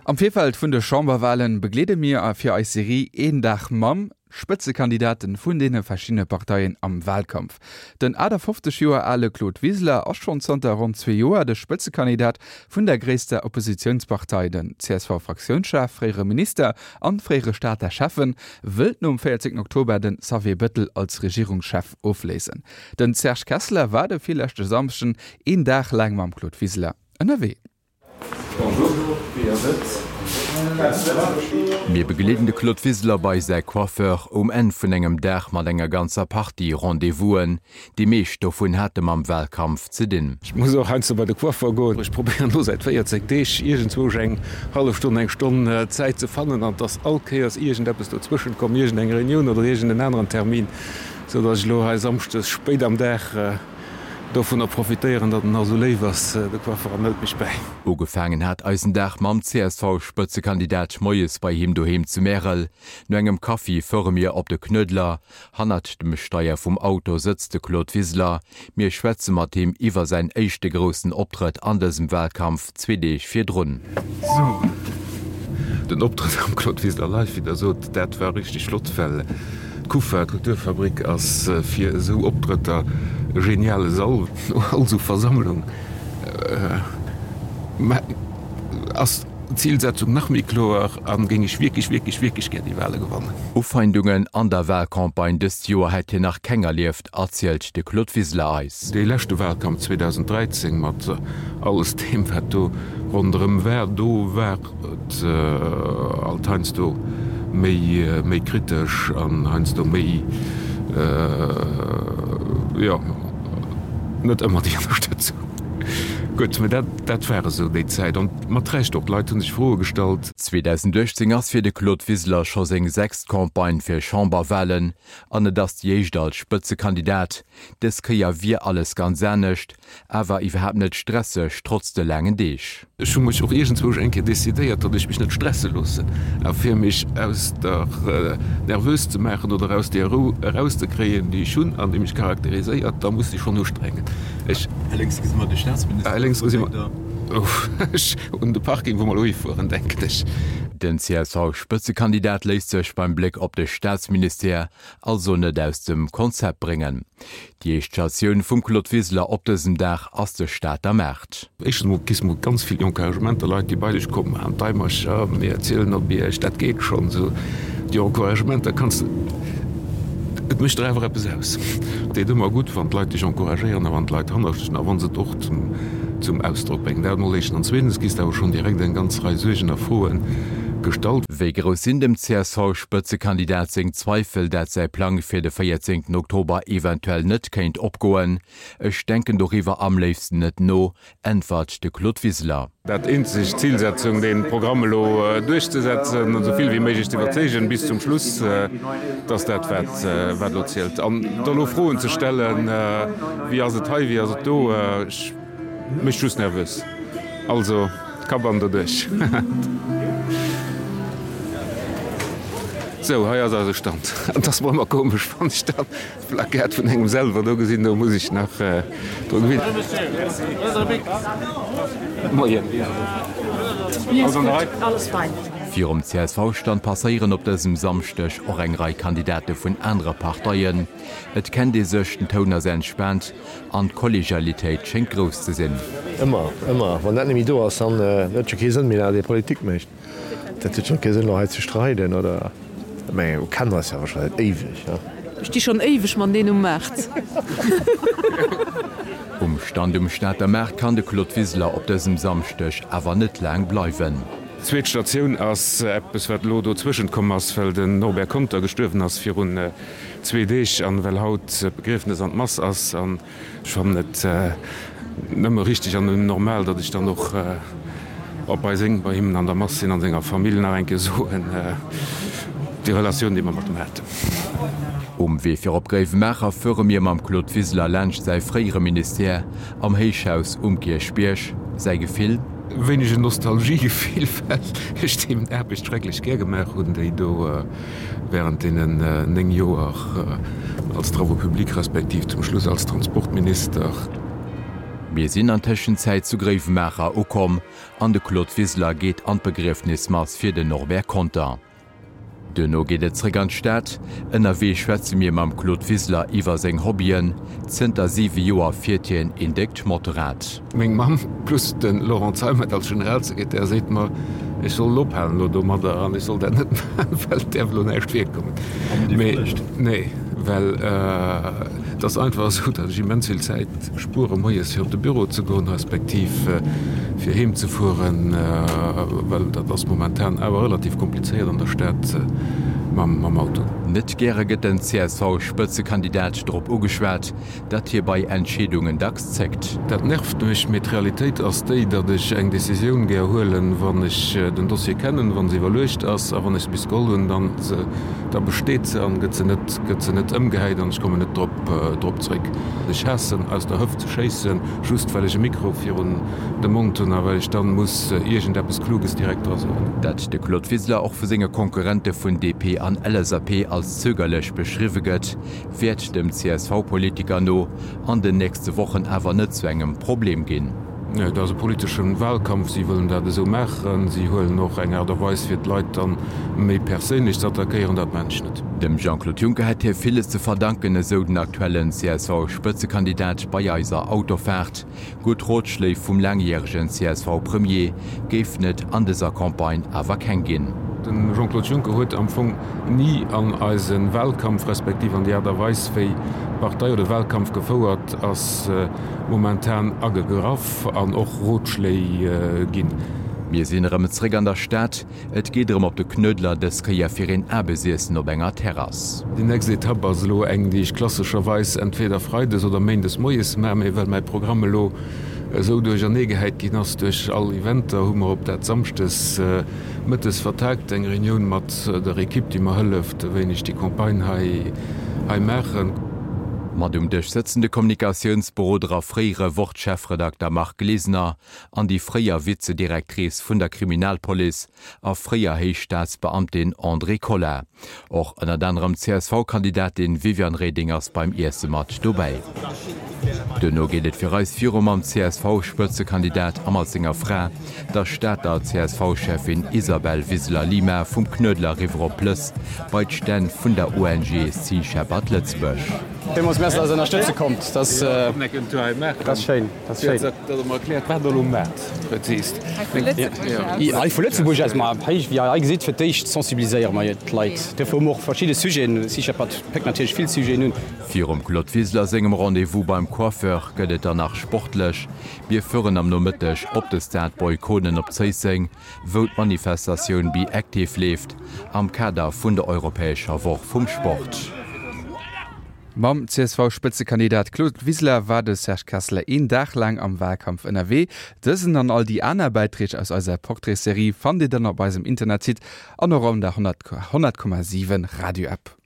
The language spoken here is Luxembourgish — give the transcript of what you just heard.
Am Virfeld vun de Chamberwahlen begleede mir a fir eis Serie Een Dag mam Spëtzekandidaten vun deene verschiddene Parteien am Wahlkampf. Den 58 Joer ale Claude Wiseler ass schonn zanter ronn zwee Joer de Spëtzekandidat vun der gréisster Oppositiounspartei. Den CSV-Fraktiounschef, fréiere Minister an fréiere Stater Schäffen wëllt nom 14 Oktober den Xavier Bettel als Regierungschef ofléisen. Den Serge Kessler war de virleschte Samschden een Dag laang mam Claude Wiseler ënnerwee. Mir begleeden de Claude Wiseler bei säi Coiffeur um Enn vun engem Dag mat enger ganzer Partie Rendez-vousen. Déi meescht dovun hate mam Wahlkampf ze dinn. Ech muss och heiansdo bei de Coiffeur goen. Ech probéieren elo säit 14 Deeg iergendzwousch eng hallef Stonn, eng Stonn Zäit ze fannen an et ass all Kéiers iergendeppes dozwëschent komm, iergendeng Reunioun oder iergenden aneren Termin, sou datt ech elo hei samschdes spéit am Dag dovunner profitéieren, datt en nach esou léif ass, de Coiffer, an hëlt mech bäi. Ugefaangen hat eisen Dag mam CSV-Spëtzekandidat moies bei him doheem zu Märel. No engem Kaffi fuere mir op de Knuedler. Hannert dem Steier vum Auto sëtzt de Claude Wiseler. Mir schwätze mat him iwwer säin éischte groussen Optrëtt an dësem Walkampf zwee Deeg virdrun. Sou, den Optrëtt am Claude Wiseler Live, wéi der sot, dat war richteg flott, well d'Kufa, d'Kulturfabrik, ass fir esou Optrëtter e geniale Sall. No all esou Versammlung ass d'Zilsetzung nach méi kloer a géing ech wierklech, wierklech, wierklech gär déi Wale gewannen. Ufeindungen an der Walcampagne dëst Joer hätt hien nach keng erlieft, erzielt de Claude Wiseler eis. Dee leschte Walkampf 2013 mat alles deem wat do ronderëm war, do war et alt heiansdo méi, méi kritesch an heiansdo méi, jo, net ëmmer déi Ënnerstëtzung. Gutt, mä dat, dat war esou déi Zäit an mat Recht och, d'Leit hu sech Froe gestallt. 2018 ass fir de Claude Wiseler scho seng sechst Campagne fir Chamberwalen an et ass déi éischt als Spëtzekandidat. Dës Kéier wier alles ganz anescht, Awer iwwerhaapt net stresseg, trotz de laangen Deeg. Ech hu mech och iergendzwousch eng Kéier decidéiert, datt ech mech net stresse loossen. A fir mech aus der nervös ze maachen oder aus där Rou erauszekréien, déi ech hunn an déi mech charakteriséiert, da muss ech schonn ustrengen. Ech. Hei lénks gesi mer de Staatsminister. Hei lénks gesi mer ech un de Parking, wou mer elo hifueren, denken ech. Den CSV-Spëtzekandidat léisst sech beim Bléck op de Staatsministère also net aus dem Konzept bréngen. Déi éischt Statioun vum Claude Wiseler op dësem Dag ass de Stater Maart. Éischtens mol kriss mol ganz vill Encouragementer, Leit déi bei dech kommen, an d'Eimercher, mir zielen op iech, dat geet schonn. Esou déi Encouragementer kanns de, et mécht der awer eppes aus. Et deet ëmmer gutt, wann d'Leit dech encouragéieren a wann d'Leit hannert dech sinn a wa se et och zum Ausdrock bréngen. Dat mol éischtens. An zweetens kriss de awer schonn direkt eng ganz Rei Suergen a Froen gestallt. Wéi grouss sinn dem CSV-Spëtzekandidat seng Zweifel, dat säi Plang fir de 14 Oktober eventuell net kéint opgoen? Ech denken doriwwer am léifsten net no, äntwert de Claude Wiseler. Dat eenzeg Zilsetzung, dee Programm elo duerchzesetzen an esou vill wéi méiglech ze iwwerzeegen bis zum Schluss, dat ass dat, wat elo zielt. An da elo Froen ze stellen, wéi ass et hei, wéi ass et do, ech. Mécht just nervös. Also Kapp an doduerch. Sou, hei ass eise Stand. Et ass mer ëmmer komesch, wann ech dann d'Plaquette vun engem selwer do gesinn. Do muss ech nach dru gewinnen. Moien. Alles an der Rei? Virum CSV-Stand passéieren op dësem Samschdeg och eng Rei Kandidate vun anere Parteien. Et kennt ee sech, den Toun ass entspaant an d'Kollegialitéit schéngt grouss ze sinn. Ëmmer, ëmmer. Wann dat net méi do ass, dann huet et jo kee Sënn méi, datt ee Politik mécht. Dat huet jo kee Sënn, elo hei ze streiden oder, mä mir kennen eis jo awer scho säit éiweg, ne? Ech sti schonn éiweg mat deen um Maart. Um Stand um Stater Maart kann de Claude Wiseler op dësem Samschdeg awer net laang bleiwen. Zweet Statioun ass eppes, wat elo dozwëschent komm ass, well den Norbert Conter gestuerwen ass virun zwee Deeg an well haut d'Begriefnes an d'Mass ass an ech fannen et nëmme richteg an nëmmen normal, datt ech dann och op bei seng, bei him an der Mass sinn an senger Famill nach eng Kéier soen, déi Relatioun, déi mer mat em haten. Um Wee fir op Gréiwemaacher fuere mir mam Claude Wiseler laanscht säi fréiere Ministère am Héichhaus um Kierchbierg. Säi Gefill? Wéineg en Nostalgiegefill, well ech déi Aarbecht schrecklech gär gemaach hunn, déi do während deenen 9 Joer als Travaux publics respektiv zum Schluss als Transportminister. Mir sinn an Tëschenzäit zu Gréiwemaacher ukomm an de Claude Wiseler geet an d'Begriefnismass fir den Norbert Conter. Duerno geet et zréck an d'Stad. Ënnerwee schwätze mir mam Claude Wiseler iwwer seng Hobbyen. Zënter 7 Joer fiert hien een déckt Motorrad. Meng Mamm plus de Laurent Zeimet als Generalsekretär seet mer, ech soll ophalen elo domadder an ech soll dat net maachen, well et däerf elo näischt virkommen. Mee nee, well et ass einfach esou, datt ech immens vill Zäit spuere moies fir op de Büro ze goen, respektiv fir heem ze fueren, well dat ass momentan awer relativ komplizéiert an der Stad mam Auto. Net gäre gëtt den CSV-Spëtzekandidat drop ugeschwat, datt hie bei Entscheedungen dacks zéckt. Dat nervt mech, mee d'Realitéit ass déi, datt ech eng Decisioun gär huelen, wann ech den Dossier kennen, wa se iwwerluecht ass a wann ech se bis geholl hunn, dann da besteet se an gëtt se net gëtt se net ëmgehäit an ech kommen net drop drop zréck. Ech haassen aus der Hëft ze schéissen, just well ech e Mikro virun dem Mond hunn a well ech dann muss iergendeppes Kluges direkt dra soen. Datt de Claude Wiseler och vu senge Konkurrente vun DP an LSAP als zögerlech beschriwwe gëtt, wäert dem CSV-Politiker no an den nächste Wochen awer net zu engem Problem ginn. Et ass e politesche Wahlkampf, si wëllen dat esou maachen. Si huelen och eng Aart a Weis fir d'Leit dann méi perséinlech ze attackéieren, dat maachen ech net. Dem Jean-Claude Juncker hätt hie villes ze verdanken, esou den aktuellen CSV-Spëtzekandidat bei eiser Autofaart. Gutt Rotschléi vum laangjäregen CSV-Premier géifen et an dëser Campagne awer keng ginn. De Jean-Claude Juncker huet am Fong ni an eise Wahlkampf, respektiv an déi Aart a Weis wéi d'Partei oder de Wahlkampf gefouert ass, momentan agegraff an och Rotschléi ginn. Mir sinn erëm zréck an der Stad. Et geet erëm op de Knuedler, dës Kéier fir een Aarbesiessen op enger Terrass. Déi nächst Etapp ass elo eng, déi ech klassescherweis entweder freides oder méindes moies maachen, mee well mäi Programm elo esou duercherneegehäit ginn ass duerch all Eventer, hu mer op dat samschdes mëttes vertaagt, eng Reunioun mat der Ekipp, déi mer hëlleft, wéini ech déi Campagne hei hei maachen. Mat um Dësch sëtzen de Kommunikatiounsberoder a fréiere Wort-Chefredakter Marc Glesener an déi fréier Vize-Directrice vun der Kriminalpolice a fréier Héichstaatsbeamtin Andrée Colas. Och ënnert anerem d'CSV-Kandidatin Viviane Reding ass beim Iesse mat dobäi. Duerno geet et fir eis viru mam CSV-Spëtzekandidat a mat senger Fra, der Stater CSV-Cheffin Isabel Wiseler-Lima vum Knuedler eriwwer op Plëss bei d'Stänn vun der ONG Sea Shepherd Lëtzebuerg. Villmools Merci, dass der ënnerstëtze kommt. Dat ass schéin. Dat ass schéin. Hei vu Lëtzebuerg aus, ma hei, wéi Dir hei gesitt, fir d'éischt sensibiliséiere mer d'Leit. Duerfir hu mer och verschidde Sujeten. Sea Shepherd péckt natierlech vill Sujeten un. Virum Claude Wiseler sengem Rendez-vous beim Coiffeur gëtt et dann nach sportlech. Mir fueren am Nomëtteg op de Stade Boy Konen op Zéisseng, wou d'Manifestatioun Be Active leeft, am Kader vun der europäescher Woch vum Sport. Mam CSV-Spëtzekandidat Claude Wiseler war de Serge Kesseler een Dag laang am Wahlkampf ënnerwee. Dësen an all déi aner Bäiträg aus eiser Portraits-Serie fannt Dir dann op eisem Internetsite an och an der 100,7 Radio-App.